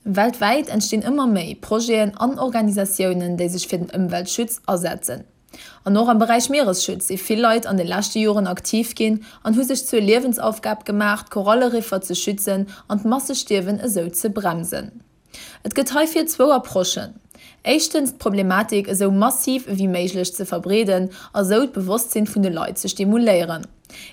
Weltwäit entstinn ëmmer méi Projeten an Organisatiounen, déi sech fir den Ëmweltschutz asetzen. An och am Beräich Mieresschutz si vill Leit an de leschte Joren aktiv ginn an hu sech zur Liewensaufgab gemaach, d'Koralleriffer ze schützen an d'Massestierwen esou ze bremsen. Et gëtt heifir zwou Approchen, Éischtens d'Problematik esou massiv ewéi méiglech ze verbreeden a sou d'Bewosstsinn vun de Leit ze stimuléieren.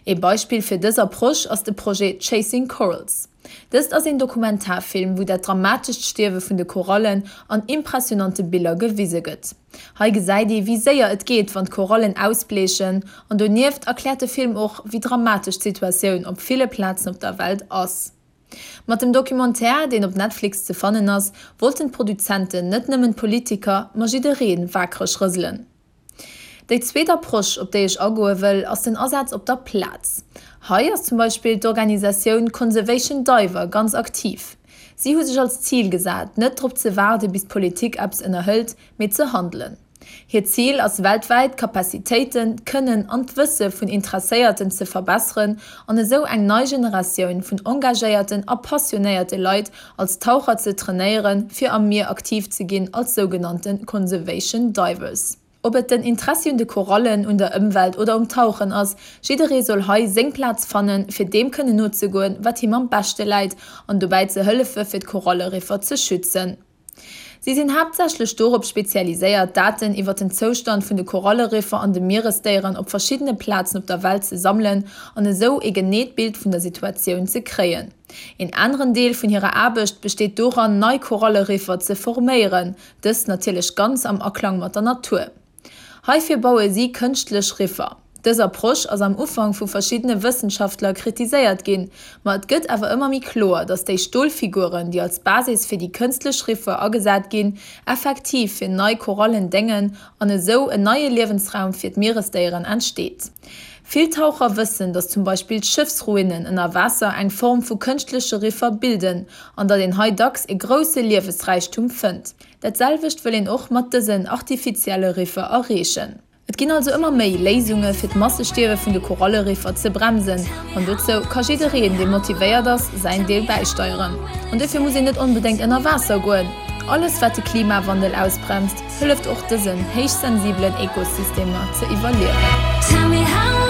Ee Beispill fir dës Approche ass de Projet Chasing Corals. Dëst ass een Dokumentarfilm, wou dat dramatescht Stierwe vun de Korallen an impressionante Biller gewise gëtt. Hei gesäit ee wéi séier et geet, wann d'Korallen ausbleechen an donieft erkläert de Film och, wéi dramatesch d'Situatioun op ville Plazen op der Welt ass. Mat dem Documentaire, deen op Netflix ze fannen ass, wollten d'Produzenten net nëmmen d'Politiker, ma jidderee waakreg rëselen. Déi zweet Approche, op déi ech agoe wëll, ass den Asaz op der Plaz. Hei ass zum Beispill d'Organisatioun Conservation Diver ganz aktiv. Si hu sech als Zil gesat, net drop ze waarde bis d'Politik eppes ënnerhëlt, mee ze handelen. Hiert Zil ass weltwäit d'Capacitéiten, d'Kënnen an d'Wësse vun Interesséierten ze verbesseren an esou eng nei Generatioun vun engagéierten a passionéierte Leit als Taucher ze trainéieren, fir am Mier aktiv ze ginn als sougenannte Conservation Divers. Ob et den Interessi un de Korallen, un der Ëmwelt oder um Tauchen ass, jidderee soll hei seng Plaz fannen, fir deem kënnen nozegoen, wat him am beschte läit an dobäi ze hëllefe fir d'Koralleriffer ze schützen. Si sinn haaptsächlech dorop spezialiséiert, Daten iwwer den Zoustand vun de Koralleriffer an de Mieresdéieren op verschiddene Plazen op der Welt ze sammelen an esou ee geneet Bild vun der Situatioun ze kréien. Een aneren Deel vun hirer Aarbecht besteet doran, nei Koralleriffer ze forméieren, dëst natierlech ganz am Aklang mat der Natur. Heifir baue si kënschtlech Riffer. Dës Approche ass am Ufank vu verschiddene Wëssenschaftler kritiséiert ginn, ma et gëtt awer ëmmer méi kloer, datt déi Stolfiguren, déi als Basis fir déi kënstlech Riffer agesat ginn, effektiv fir nei Korallen déngen an esou en neie Liewensraum fir d'Mieresdéieren entsteet. Vill Taucher wëssen, datt zum Beispill Schëffsruinen ënner Waasser eng Form vu kënschtleche Riffer bilden an datt een hei dacks e grousse Liewesräichtum fënnt. Dat selwecht wëll een och mat dësen artifizielle Riffer erreechen. Et ginn also ëmmer méi Léisunge fir d'Massestierwe vun de Koralleriffer ze bremsen an dozou ka jiddereen, dee motivéiert ass, säin Deel bäisteieren. An dofir muss een net onbedéngt ënner Waasser goen. Alles wat de Klimawandel ausbremst, hëlleft och dësen héichsensibelen Ekosystemer ze iwwerliewen.